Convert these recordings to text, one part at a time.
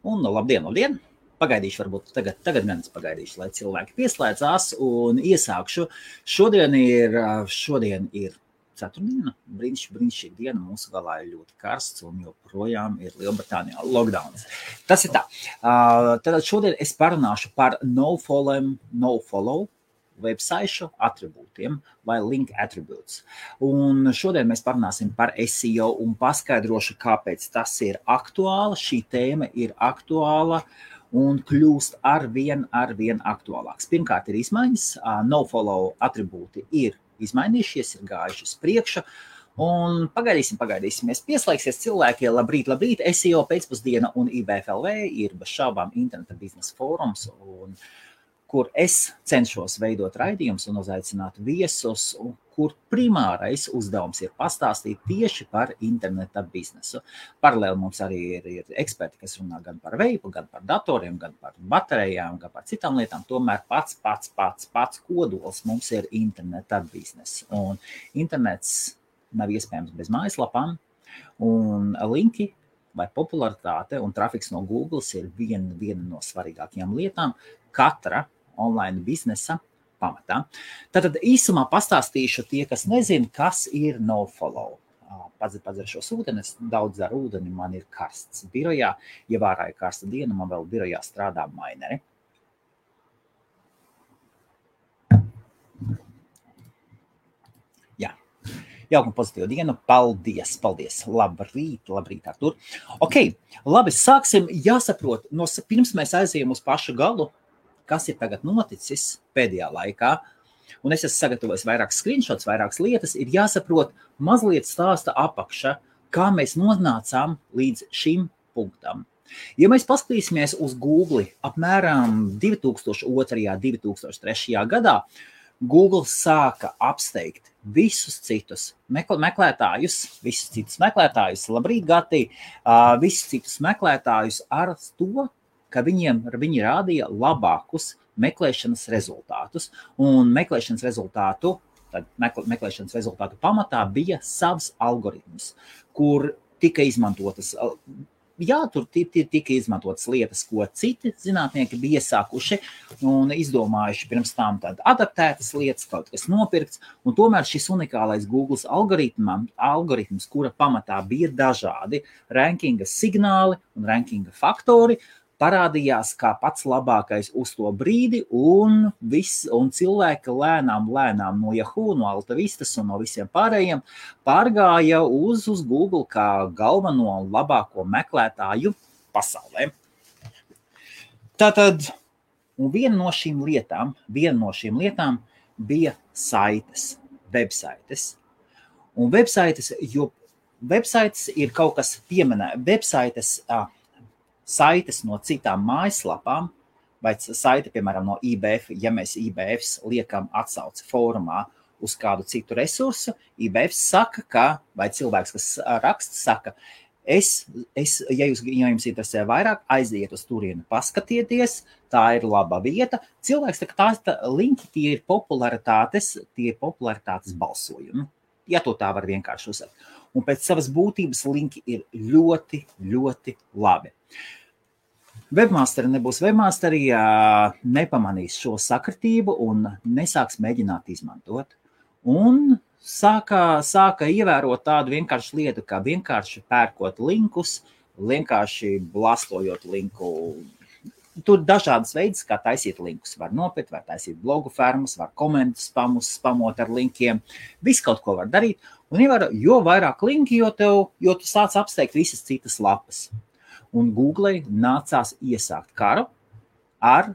Un labdien! Pagaidīšu, varbūt tagad gan es pagaidīšu, lai cilvēki pieslēdzās un iesākšu. Šodien ir ceturtdiena, brīnišķīga diena, mūsu galā ir ļoti karsts un joprojām ir Lielbritānijā lockdowns. Tas ir tā. Tad šodien es parunāšu par nofollow websaišu atribūtiem vai link attributes. Un šodien mēs parunāsim par SEO un paskaidrošu, kāpēc tas ir aktuāli. Šī tēma ir aktuāla un kļūst arvien aktuālāks. Pirmkārt ir izmaiņas, nofollow atribūti ir izmainījušies, ir gājuši uz priekšu. Un pagaidīsim. Pieslēgsies cilvēki, labrīt, SEO pēcpusdiena un IBFLV ir bez šaubām interneta biznesa fórums, kur es cenšos veidot raidījumus un uzaicināt viesus, kur primārais uzdevums ir pastāstīt tieši par interneta biznesu. Paralēli mums arī ir eksperti, kas runā gan par veipu, gan par datoriem, gan par baterijām, gan par citām lietām. Tomēr pats kodols mums ir interneta bizness. Un internets nav iespējams bez mājaslapām, un linki vai popularitāte un trafiks no Google ir viena no svarīgākajām lietām katra online biznesa pamatā. Tātad īsumā pastāstīšu tie, kas nezina, kas ir nofollow. Padzeršos ūdeni, es daudz dzeru ūdeni, man ir karsts birojā. Ja vārā ir karsta diena, man vēl birojā strādā maineri. Jā. Jauka un pozitīva diena. Paldies. Labrīt, Artur. Ok, labi, sāksim. Jāsaprot, pirms mēs aizējam uz pašu galu, kas ir tagad noticis pēdējā laikā, un es esmu sagatavojis vairākas screenshots, vairākas lietas, ir jāsaprot mazliet stāsta apakša, kā mēs nonācām līdz šim punktam. Ja mēs paskatīsimies uz Google apmēram 2002. 2003. gadā, Google sāka apsteigt visus citus meklētājus, labrīt, Gati, visus citus meklētājus ar to, ka viņi rādīja labākus meklēšanas rezultātus. Un meklēšanas rezultātu pamatā bija savs algoritms, kur tika izmantotas. Jā, tur tika izmantotas lietas, ko citi zinātnieki bija iesākuši un izdomājuši pirms tam adaptētas lietas, kaut kas nopirkts. Un tomēr šis unikālais Google algoritms, kura pamatā bija dažādi rankinga signāli un rankinga faktori, parādījās kā pats labākais uz to brīdi, un cilvēki lēnām no Yahoo, no Altavistas un no visiem pārējiem pārgāja uz Google kā galveno labāko meklētāju pasaulē. Tātad, un viena no šīm lietām bija websaites. Un websaites ir kaut kas pieminēts. Saites no citām mājaslapām, vai saite, piemēram, no IBF, ja mēs IBF liekam atsauci fórumā uz kādu citu resursu, IBF saka, vai cilvēks, kas raksta, saka, ja jums interesē vairāk, aiziet uz turieni, paskatieties, tā ir laba vieta. Cilvēks saka, linki tie ir popularitātes balsojumi, ja to tā var vienkārši uzsākt. Un pēc savas būtības linki ir ļoti labi. Webmasteri nebūs webmasteri, nepamanīs šo sakritību un nesāks mēģināt izmantot. Un sāka ievērot tādu vienkāršu lietu, kā vienkārši pērkot linkus, vienkārši blastojot linku. Tur dažādas veids, kā taisīt linkus. Var nopirkt, var taisīt blogu fermas, var komentus spamot ar linkiem. Visu kaut ko var darīt. Un jo vairāk linki, jo tu sāc apsteigt visas citas lapas. Un Google nācās iesākt karu ar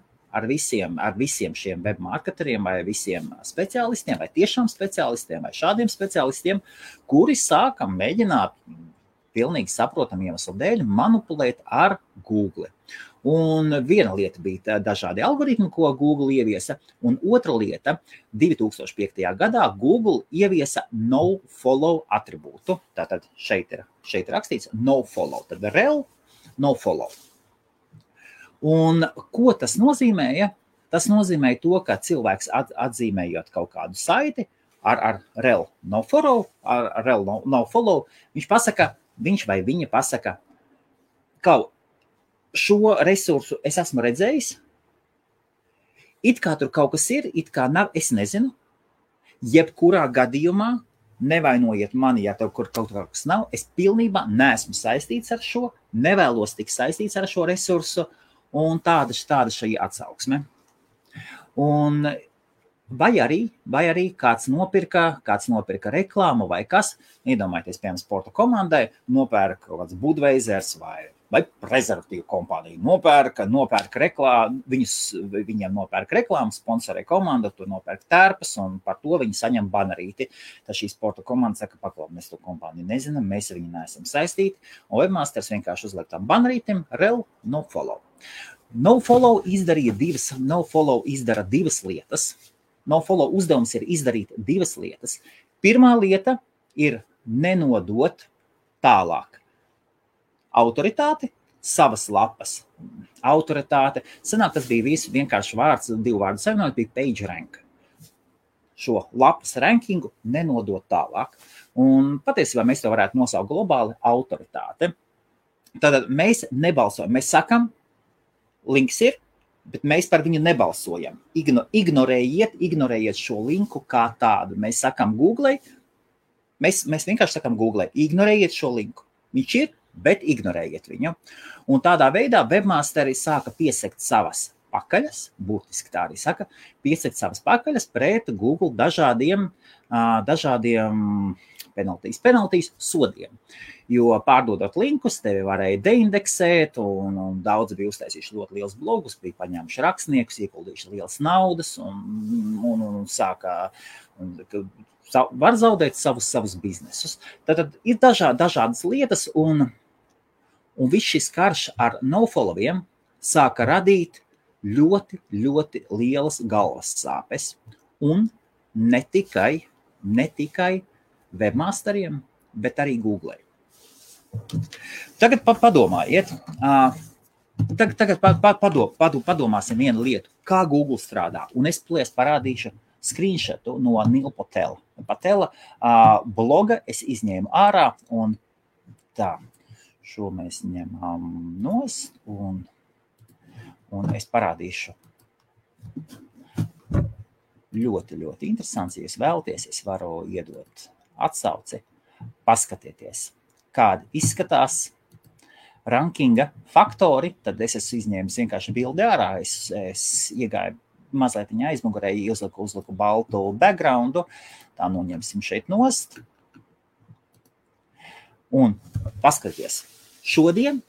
visiem šiem webmarketeriem vai visiem speciālistiem, vai tiešām speciālistiem, vai šādiem speciālistiem, kuri sāka mēģināt pilnīgi saprotam iemeslu dēļ manipulēt ar Google. Un viena lieta bija dažādi algoritmi, ko Google ieviesa, un otra lieta 2005. gadā Google ieviesa nofollow atribūtu. Tātad šeit ir rakstīts nofollow, tad rel nofollow. Un ko tas nozīmēja? Tas nozīmēja to, ka cilvēks atzīmējot kaut kādu saiti ar rel nofollow, viņš pasaka, viņš vai viņa pasaka, ka šo resursu es esmu redzējis. It kā tur kaut kas ir, it kā nav, es nezinu. Jebkurā gadījumā nevainojiet mani, ja tev kaut kas nav. Es pilnībā neesmu saistīts ar šo, nevēlos tik saistīts ar šo resursu, un tāda šī atsauksme. Un vai arī kāds nopirka reklāmu vai kas, iedomājieties, piemēram, sporta komandai, nopērka kaut kāds Budweisers vai prezervatīvu kompāniju, nopērka reklāmu, viņiem nopērka reklāmu, sponsorē komanda, tur nopērka tērpas, un par to viņi saņem banerīti. Tad šī sporta komanda saka, paklaus, mēs to kompāniju nezinām, mēs ar viņu neesam saistīti, un webmasters vienkārši uzliek tam banerītim, rel, nofollow. Nofollow izdara divas lietas. Nofollow uzdevums ir izdarīt divas lietas. Pirmā lieta ir nenodot tālāk autoritāti, savas lapas autoritāte. Sanāk, tas bija visu vienkārši vārds, divu vārdu savienot, bija page rank. Šo lapas rankingu nenodot tālāk. Un patiesībā mēs to varētu nosaukt globāli autoritāte. Tātad mēs nebalsojam. Mēs sakam, links ir, bet mēs par viņu nebalsojam. Ignorējiet šo linku kā tādu. Mēs sakam Google, mēs vienkārši sakam Google, ignorējiet šo linku. Viņš ir, bet ignorējiet viņu. Un tādā veidā webmasteri sāka piesekt savas pakaļas, būtiski tā arī saka, piesekt savas pakaļas pret Google dažādiem penaltīs sodiem. Jo pārdodot linkus, tevi varēja deindeksēt, un daudzi bija uztaisījuši ļoti liels blogus, bija paņēmuši rakstniekus, ieguldījuši lielas naudas, un sākā, var zaudēt savus biznesus. Tad ir dažādas lietas, un viss šis karš ar nofollowiem sāka radīt ļoti, ļoti lielas galvas sāpes, un ne tikai webmasteriem, bet arī Google. Tagad padomājiet, padomāsim vienu lietu, kā Google strādā, un es parādīšu screenshotu no Neil Patela bloga, es izņēmu ārā, un tā, šo mēs ņemam nost, un es parādīšu ļoti, ļoti interesants, ja jūs vēlaties, es varu iedot atsauci, paskatieties, kādi izskatās rankinga faktori, tad es esmu izņēmis vienkārši bildi ārā, es iegāju mazliet aizmugurē, uzliku baltu backgroundu, tā noņemsim šeit nost. Un paskaties, šodien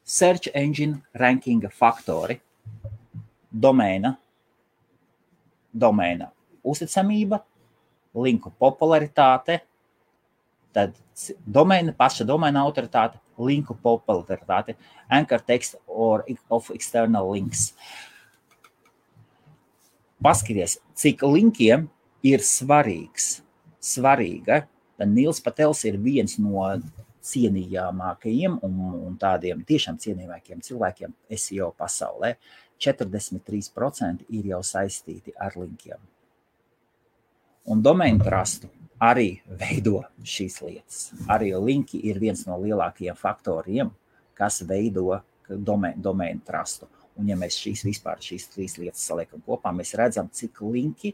search engine rankinga faktori, domēna uzticamība, linku popularitāte, tad paša domēna autoritāte, linku popularitāte, anchor text or of external links. Paskaties, cik linkiem ir svarīga. Tad Nils Patels ir viens no cienījamākajiem un tādiem tiešām cienījamākajiem cilvēkiem SEO pasaulē. 43% ir jau saistīti ar linkiem. Un domain trustu arī veido šīs lietas. Arī linki ir viens no lielākajiem faktoriem, kas veido domain trustu. Un ja mēs šīs trīs lietas saliekam kopā, mēs redzam, cik linki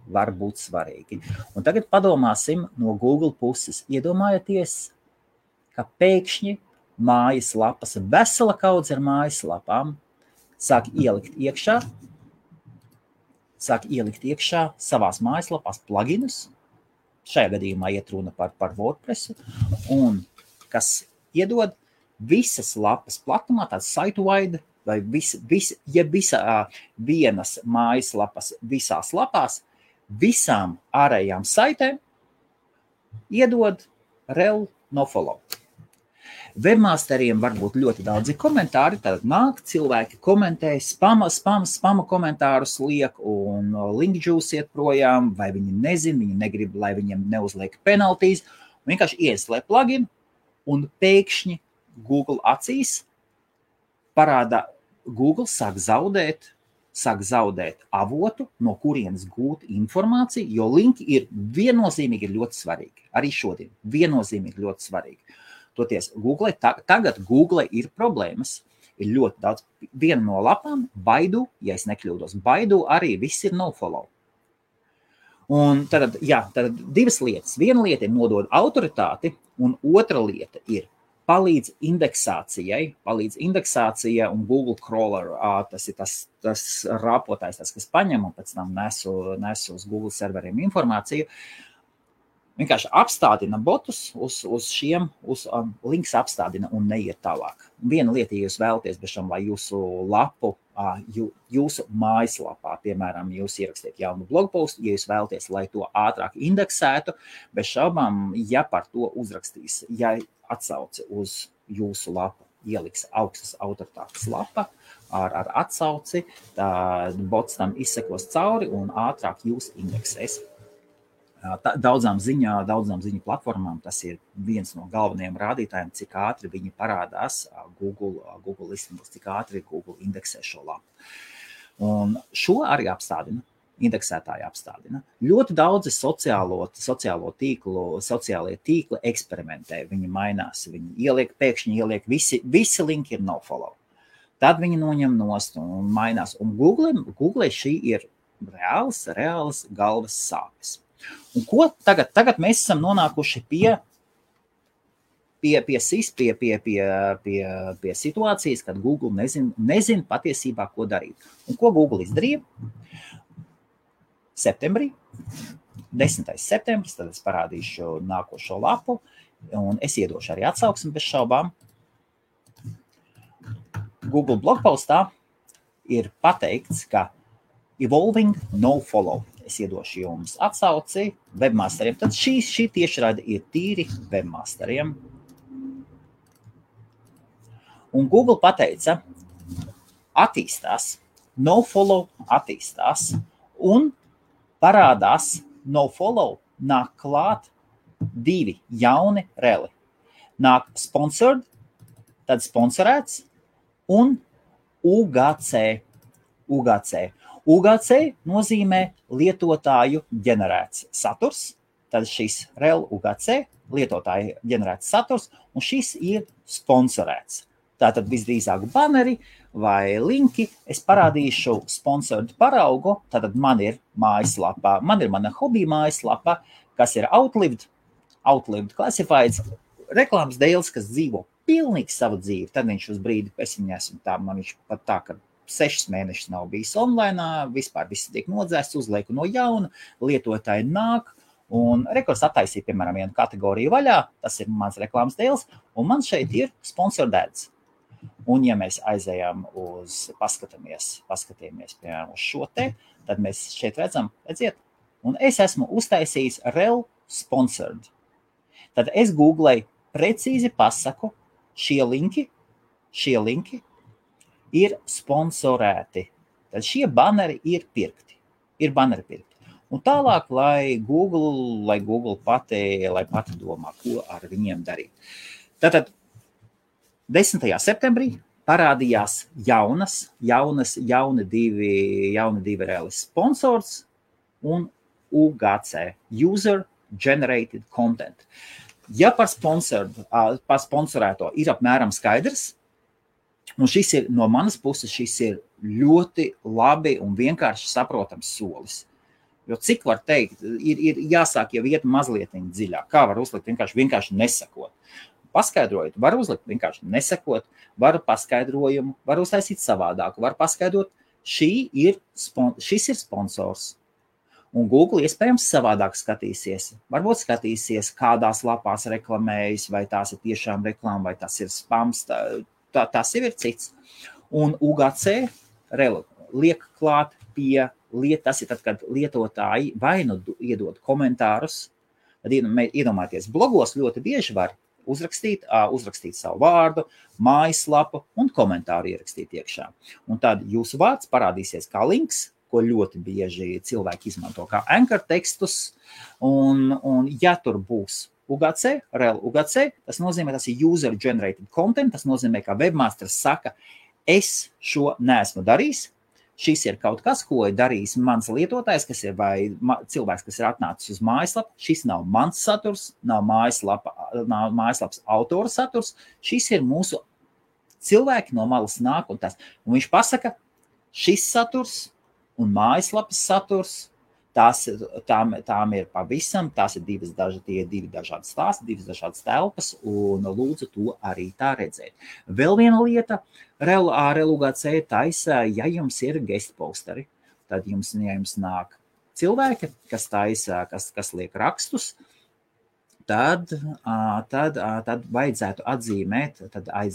var būt svarīgi. Un tagad padomāsim no Google puses. Iedomājieties, ka pēkšņi mājaslapas, vesela kaudze ar mājaslapām sāk ielikt iekšā savās mājaslapās pluginus. Šajā gadījumā iet runa par WordPressu, un kas iedod visas lapas platumā, tāds site-wide, vai vienas mājaslapas visās lapās, visām ārējām saitēm iedod rel nofollow. Webmasteriem var būt ļoti daudzi komentāri, tad nāk cilvēki komentē, spama komentārus liek un linkjuice iet projām, vai viņi nezin, viņi negrib, lai viņiem neuzliek penaltīs, un vienkārši ieslē plugin, un pēkšņi Google acīs parāda, Google sāk zaudēt avotu, no kurienes gūt informāciju, jo linki ir viennozīmīgi ļoti svarīgi. Arī šodien viennozīmīgi ļoti svarīgi. Toties Google, tagad Google ir problēmas. Ir ļoti daudz. Viena no lapām, Baidu, ja es nekļūdos, Baidu arī viss ir nofollow. Un tad divas lietas. Viena lieta ir nodod autoritāti, un otra lieta ir palīdz indeksācijai un Google crawler, tas ir tas rāpotājs, kas paņem un pēc tam nes uz Google serveriem informāciju. Vienkārši apstādina botus uz šiem, links apstādina un neiet tālāk. Viena lieta, ja jūs vēlaties, bešam, lai jūsu lapu, jūsu mājaslapā, piemēram, jūs ierakstiet jaunu blogpostu, ja jūs vēlaties, lai to ātrāk indeksētu, bez šaubām, ja par to uzrakstīs, ja atsauci uz jūsu lapu, ieliks augstas autoritātes lapa ar atsauci, tad bots tam izsekos cauri un ātrāk jūs indeksēs. Daudzām ziņu platformām tas ir viens no galvenajiem rādītājiem, cik ātri viņi parādās Google listingos, cik ātri Google indeksē šo lapu. Un šo arī apstādina, indeksētāji apstādina. Ļoti daudzi sociālie tīkli eksperimentē, viņi mainās, viņi pēkšņi ieliek, visi linki ir nofollow. Tad viņi noņem nost un mainās. Un Google šī ir reāls galvas sāpes. Un ko tagad mēs esam nonākuši pie situācijas, kad Google nezin patiesībā, ko darīt. Un ko Google izdarīja? Septembrī, 10. septembris, tad es parādīšu nākošo lapu, un es iedošu arī atsauksmi bez šaubām. Google blogpostā ir pateikts, ka evolving nofollow. Es iedošu jums atsauci webmasteriem. Tad šī tiešraide ir tīri webmasteriem. Un Google pateica, attīstās, nofollow attīstās, un parādās nofollow, nāk klāt 2 jauni reli. Nāk sponsored, tad sponsorēts, un UGC. UGC nozīmē lietotāju ģenerēts saturs, tad šis rel UGC lietotāju ģenerēts saturs, un šis ir sponsorēts. Tātad visdrīzāk banneri vai linki, es parādīšu sponsored paraugu, tātad man ir mājaslapa, man ir mana hobija mājaslapa, kas ir outlived classifieds, reklāmas dēls, kas dzīvo pilnīgi savu dzīvi, tad viņš uz brīdi, es viņu esmu tā, man viņš pat tā, ka 6 mēnešus nav bijis online, vispār viss tiek nodzēsts, uzlieku no jauna, lietotāji nāk, un rekords attaisīja, piemēram, vienu kategoriju vaļā, tas ir mans reklāmas dēls, un man šeit ir sponsored ads. Un ja mēs aizējām paskatāmies, piemēram, uz šo te, tad mēs šeit redzam, redziet, un es esmu uztaisījis rel sponsored. Tad es googlēju, precīzi pasaku, šie linki ir sponsorēti. Tad šie banneri ir pirkti. Un tālāk, lai Google pati domā, ko ar viņiem darīt. Tātad 10. septembrī parādījās jauni divi reāli sponsors un UGC, User Generated Content. Ja par sponsorēto ir apmēram skaidrs, un šis ir no manas puses, šis ir ļoti labi un vienkārši saprotams solis. Jo cik var teikt, ir jāsāk jau iet mazliet dziļāk. Kā var uzlikt vienkārši nesakot? Paskaidrojot, var uzlikt vienkārši nesakot, var paskaidrojumu, var uztaisīt savādāku, var paskaidrot, šis ir sponsors. Un Google iespējams savādāk skatīsies. Varbūt skatīsies, kādās lapās reklamējas, vai tās ir tiešām reklāma, vai tas ir spams, tas jau ir cits. Un UGC liek klāt pie tas ir tad, kad lietotāji vai nu iedod komentārus, tad iedomājieties, blogos ļoti bieži var uzrakstīt savu vārdu, mājaslapu un komentāru ierakstīt iekšā. Un tad jūsu vārds parādīsies kā links, ko ļoti bieži cilvēki izmanto kā anchor tekstus, un ja tur būs UGC, rel UGC, tas nozīmē, tas ir user generated content, tas nozīmē, ka webmasters saka, es šo neesmu darījis, šis ir kaut kas, ko ir darījis mans lietotājs, kas ir vai cilvēks, kas ir atnācis uz mājaslapu. Šis nav mans saturs, nav mājaslapas autora saturs. Šis ir mūsu cilvēki no malas nāk un tas. Un viņš pasaka, šis saturs un mājaslapas saturs, tām ir pavisam, tās ir divi dažādi stāsti, divas dažādas telpas, un lūdzu to arī tā redzēt. Vēl viena lieta, Relugācē taisa, ja jums ir guest posteri, tad jums nāk cilvēki, kas taisa, kas liek rakstus, tad vajadzētu atzīmēt,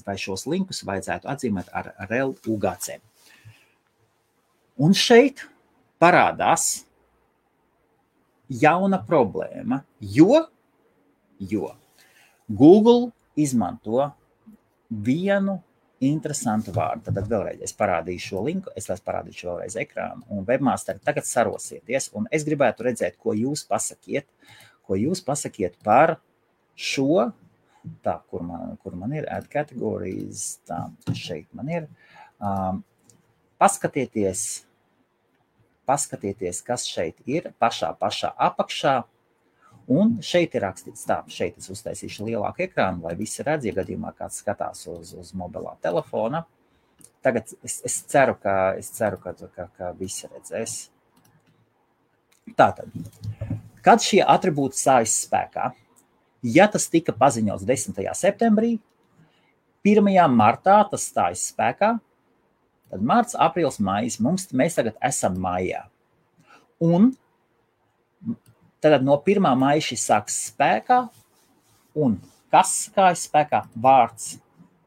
vai šos linkus vajadzētu atzīmēt ar Relugācē. Un šeit parādās jauna problēma, jo Google izmanto vienu interesantu vārdu. Tad vēlreiz es parādīšu šo linku, es parādīšu vēlreiz ekrānu, un webmasteri tagad sarosieties, un es gribētu redzēt, ko jūs pasakiet par šo, tā, kur man ir, add categories, tā, šeit man ir, paskatieties, kas šeit ir, pašā apakšā, un šeit ir rakstīts tā, šeit es uztaisīšu lielāku ekrānu, lai visi redz, ja gadījumā kāds skatās uz mobilā telefona. Tagad es ceru, ka visi redzēs. Tātad, kad šie atribūti stājas spēkā, ja tas tika paziņots 10. septembrī, 1. martā tas stājas spēkā, tad marts, aprīlis, maijs, mēs tagad esam maijā. Un tad no 1. maija šis sāks spēkā, un kas kājas spēkā? Vārds.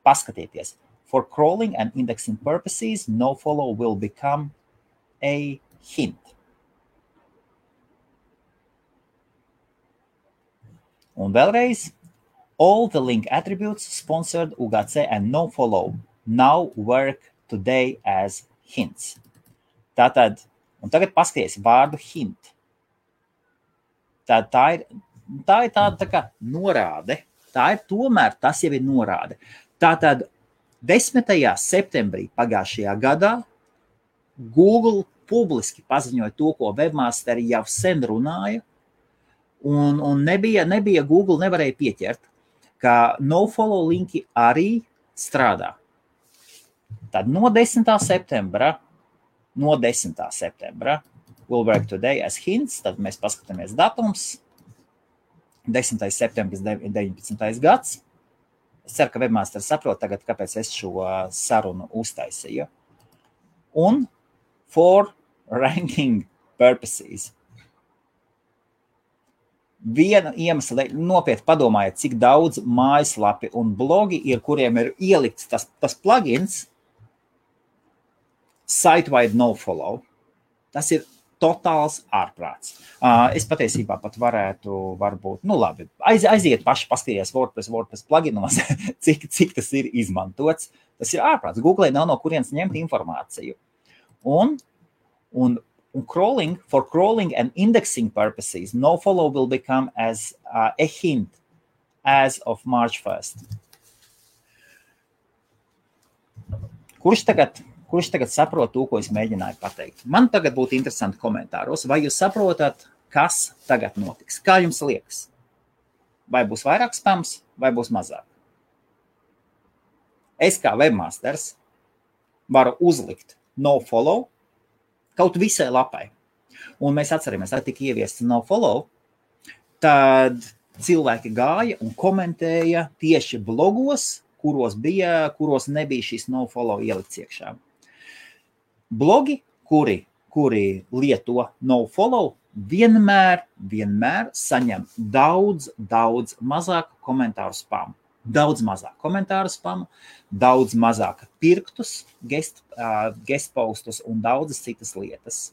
Paskatieties. For crawling and indexing purposes, nofollow will become a hint. Un vēlreiz, all the link attributes sponsored UGC and nofollow now work today as hints. Tātad, un tagad paskaties vārdu hint. Tā ir tāda tā kā norāde. Tā ir tomēr, tas jau ir norāde. Tātad 10. septembrī pagājušajā gadā Google publiski paziņoja to, ko webmasteri jau sen runāja, un nebija Google nevarēja pieķert, ka nofollow linki arī strādā. Tad no 10. septembra will work today as hints, tad mēs paskatāmies datums, 10. septembris 19. gads. Es ceru, ka webmasters saprot tagad, kāpēc es šo sarunu uztaisīju. Un for ranking purposes. Viena iemesla, nopietni padomājiet, cik daudz mājaslapi un blogi ir, kuriem ir ielikts tas plugins site-wide nofollow. Tas ir totāls ārprāts. Es patiesībā pat varētu, varbūt, labi, aiziet paši paskatīties WordPress pluginos, cik tas ir izmantots. Tas ir ārprāts. Google nav no kurienes ņemt informāciju. Un for crawling and indexing purposes, nofollow will become as a hint as of March 1st. Kurš tagad saprot to, ko es mēģināju pateikt? Man tagad būtu interesanti komentāros, vai jūs saprotat, kas tagad notiks? Kā jums liekas? Vai būs vairāk spams, vai būs mazāk? Es kā webmasters varu uzlikt nofollow kaut visai lapai. Un mēs atceramies, tad tika ieviests nofollow, tad cilvēki gāja un komentēja tieši blogos, kuros nebija šis nofollow ielikts iekšā. Blogi, kuri lieto nofollow, vienmēr saņem daudz mazāk komentāru spamu. Daudz mazāk komentāru spamu, daudz mazāk pirktus, guest postus un daudzas citas lietas.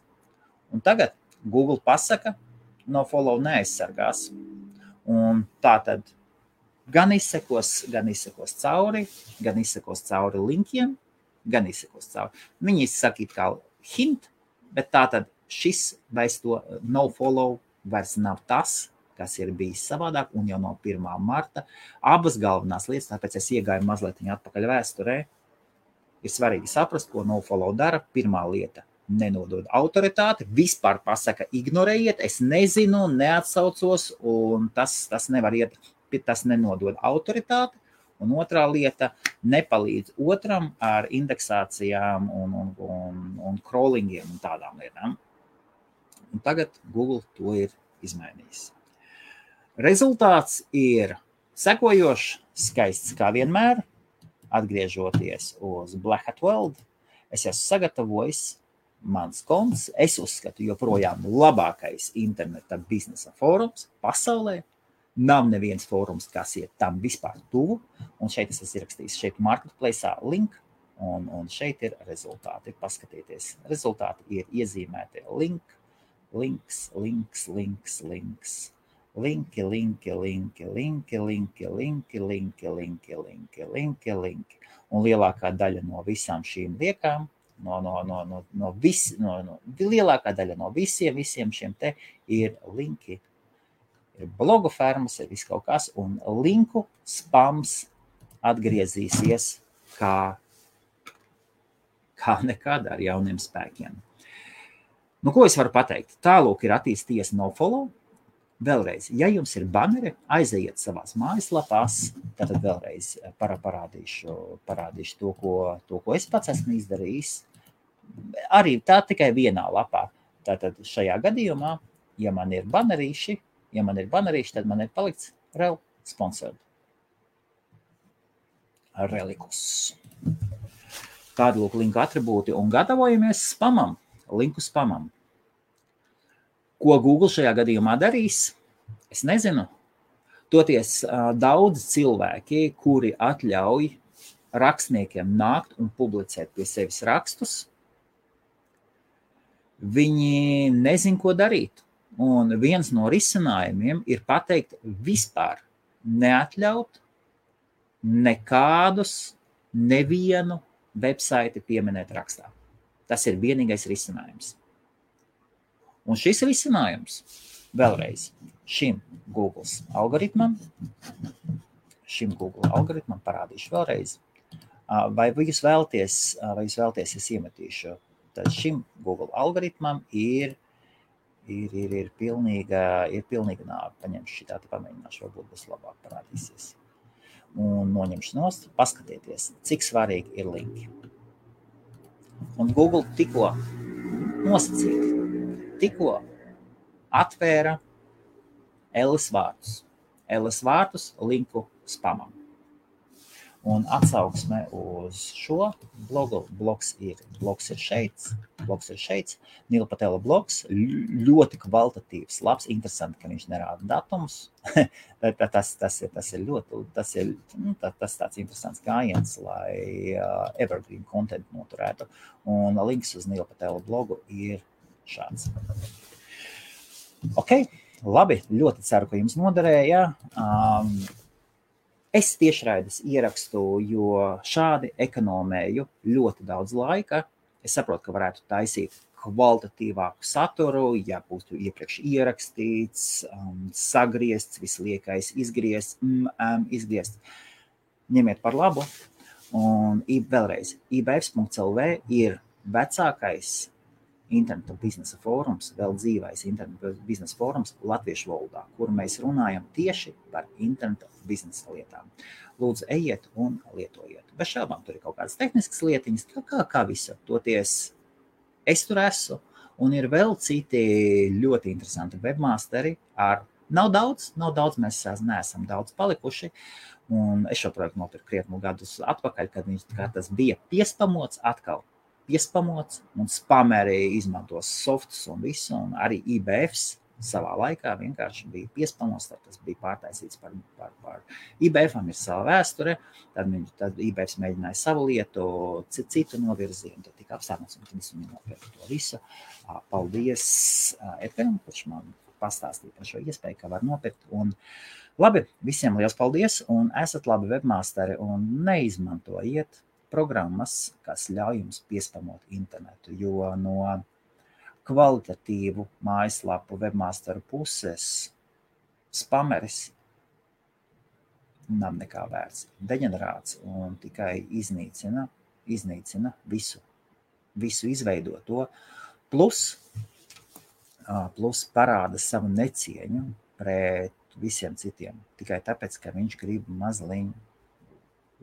Un tagad Google pasaka, nofollow neaizsargās. Un tā tad gan izsekos cauri linkiem, gan izsekos cauri. Viņi sakīt kā hint, bet tātad šis vairs to nofollow vairs nav tas, kas ir bijis savādāk, un jau no 1. marta abas galvenās lietas, tāpēc es iegāju mazliet atpakaļ vēsturē, ir svarīgi saprast, ko nofollow dara. Pirmā lieta nenodod autoritāti, vispār pasaka, ignorējiet, es nezinu, neatsaucos, un tas nevar iet, tas nenodod autoritāti. Un otrā lieta, nepalīdz otram ar indeksācijām un crawlingiem un tādām lietām. Un tagad Google to ir izmainījis. Rezultāts ir sekojošs, skaists kā vienmēr. Atgriežoties uz Black Hat World, es esmu sagatavojis mans konts. Es uzskatu joprojām labākais interneta biznesa fórums pasaulē. Nav neviens fórums, kas iet tam vispār tuvu. Un šeit es esmu ierakstījis šeit marketplace'ā link. Un šeit ir rezultāti. Paskatieties, rezultāti ir iezīmēti links. Linki. Un lielākā daļa no visām šīm liekām, lielākā daļa no visiem šiem te ir linki. Ir blogu fermas, ir viss kaut kas, un linku spams atgriezīsies kā nekad ar jauniem spēkiem. Nu, ko es varu pateikt? Tālūk ir attīstījies nofollow. Vēlreiz, ja jums ir banneri, aizejiet savās mājaslapās, tad vēlreiz parādīšu to, ko es pats esmu izdarījis. Arī tā tikai vienā lapā. Tātad šajā gadījumā, ja man ir bannerīši, tad man ir palikts rel sponsored. Relikus. Tādi lūk linku atribūti un gatavojamies spamam, linku spamam. Ko Google šajā gadījumā darīs? Es nezinu. Toties daudz cilvēki, kuri atļauj rakstniekiem nākt un publicēt pie sevis rakstus, viņi nezin, ko darīt. Un viens no risinājumiem ir pateikt vispār neatļaut nevienu websaiti pieminēt rakstā. Tas ir vienīgais risinājums. Un šis risinājums vēlreiz šim Google algoritmam parādīšu vēlreiz. Vai jūs vēlties, es iemetīšu, tad šim Google algoritmam ir pilnīga nāve. Paņemšu šitā, pamēģināšu, varbūt būs labāk parādīsies. Un noņemšu nost, paskatieties, cik svarīgi ir linki. Un Google tikko atvēra LS vārtus linku spamam. Un atsauksme uz šo blogu, blogs ir šeit, Nila Patela blogs, ļoti kvalitatīvs, labs, interesanti, ka viņš nerāda datumus. tas ir tāds interesants gājiens, lai evergreen content noturētu. Un links uz Nila Patela blogu ir šāds. Ok, labi, ļoti ceru, ka jums noderēja. Es tiešraides ierakstu, jo šādi ekonomēju ļoti daudz laika. Es saprotu, ka varētu taisīt kvalitatīvāku saturu, ja būtu iepriekš ierakstīts, sagriezts, visliekais izgriezt. Ņemiet par labu. Un vēlreiz, ibfs.lv ir vecākais interneta biznesa fórums, vēl dzīvais interneta biznesa fórums latviešu valodā, kur mēs runājam tieši par interneta biznesa lietām. Lūdzu, ejiet un lietojiet. Bez šaubām tur ir kaut kādas tehniskas lietiņas, kā visur. Toties es tur esmu, un ir vēl citi ļoti interesanti webmasteri. Nav daudz, mēs neesam daudz palikuši. Un es šo projektu nopirku krietnu gadus atpakaļ, kad tas bija piespamots atkal. Un spameri izmantos softus un visu, un arī IBFs savā laikā vienkārši bija piespamots, tad tas bija pārtaisīts par IBFam ir sava vēsture, tad IBFs mēģināja savu lietu, citu novirzienu, tad tika apstānots, un tad es viņu nopirku to visu. Paldies Edgaram, kurš man pastāstīja par šo iespēju, ka var nopirkt, un labi, visiem liels paldies, un esat labi webmasteri, un neizmantojiet programmas, kas ļauj jums piespamot internetu, jo no kvalitatīvu mājaslapu webmasteru puses spameris nav nekā vērts. Deģenerāts un tikai iznīcina visu. visu izveido to, plus parāda savu necieņu pret visiem citiem, tikai tāpēc, ka viņš grib mazliet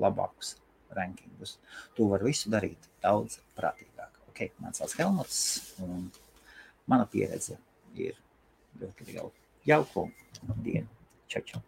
labākus rankingus. Tu vari visu darīt daudz prātīgāk. Ok, man sauc Helmuts, un mana pieredze ir ļoti liela. Jauku dienu. Čau, čau.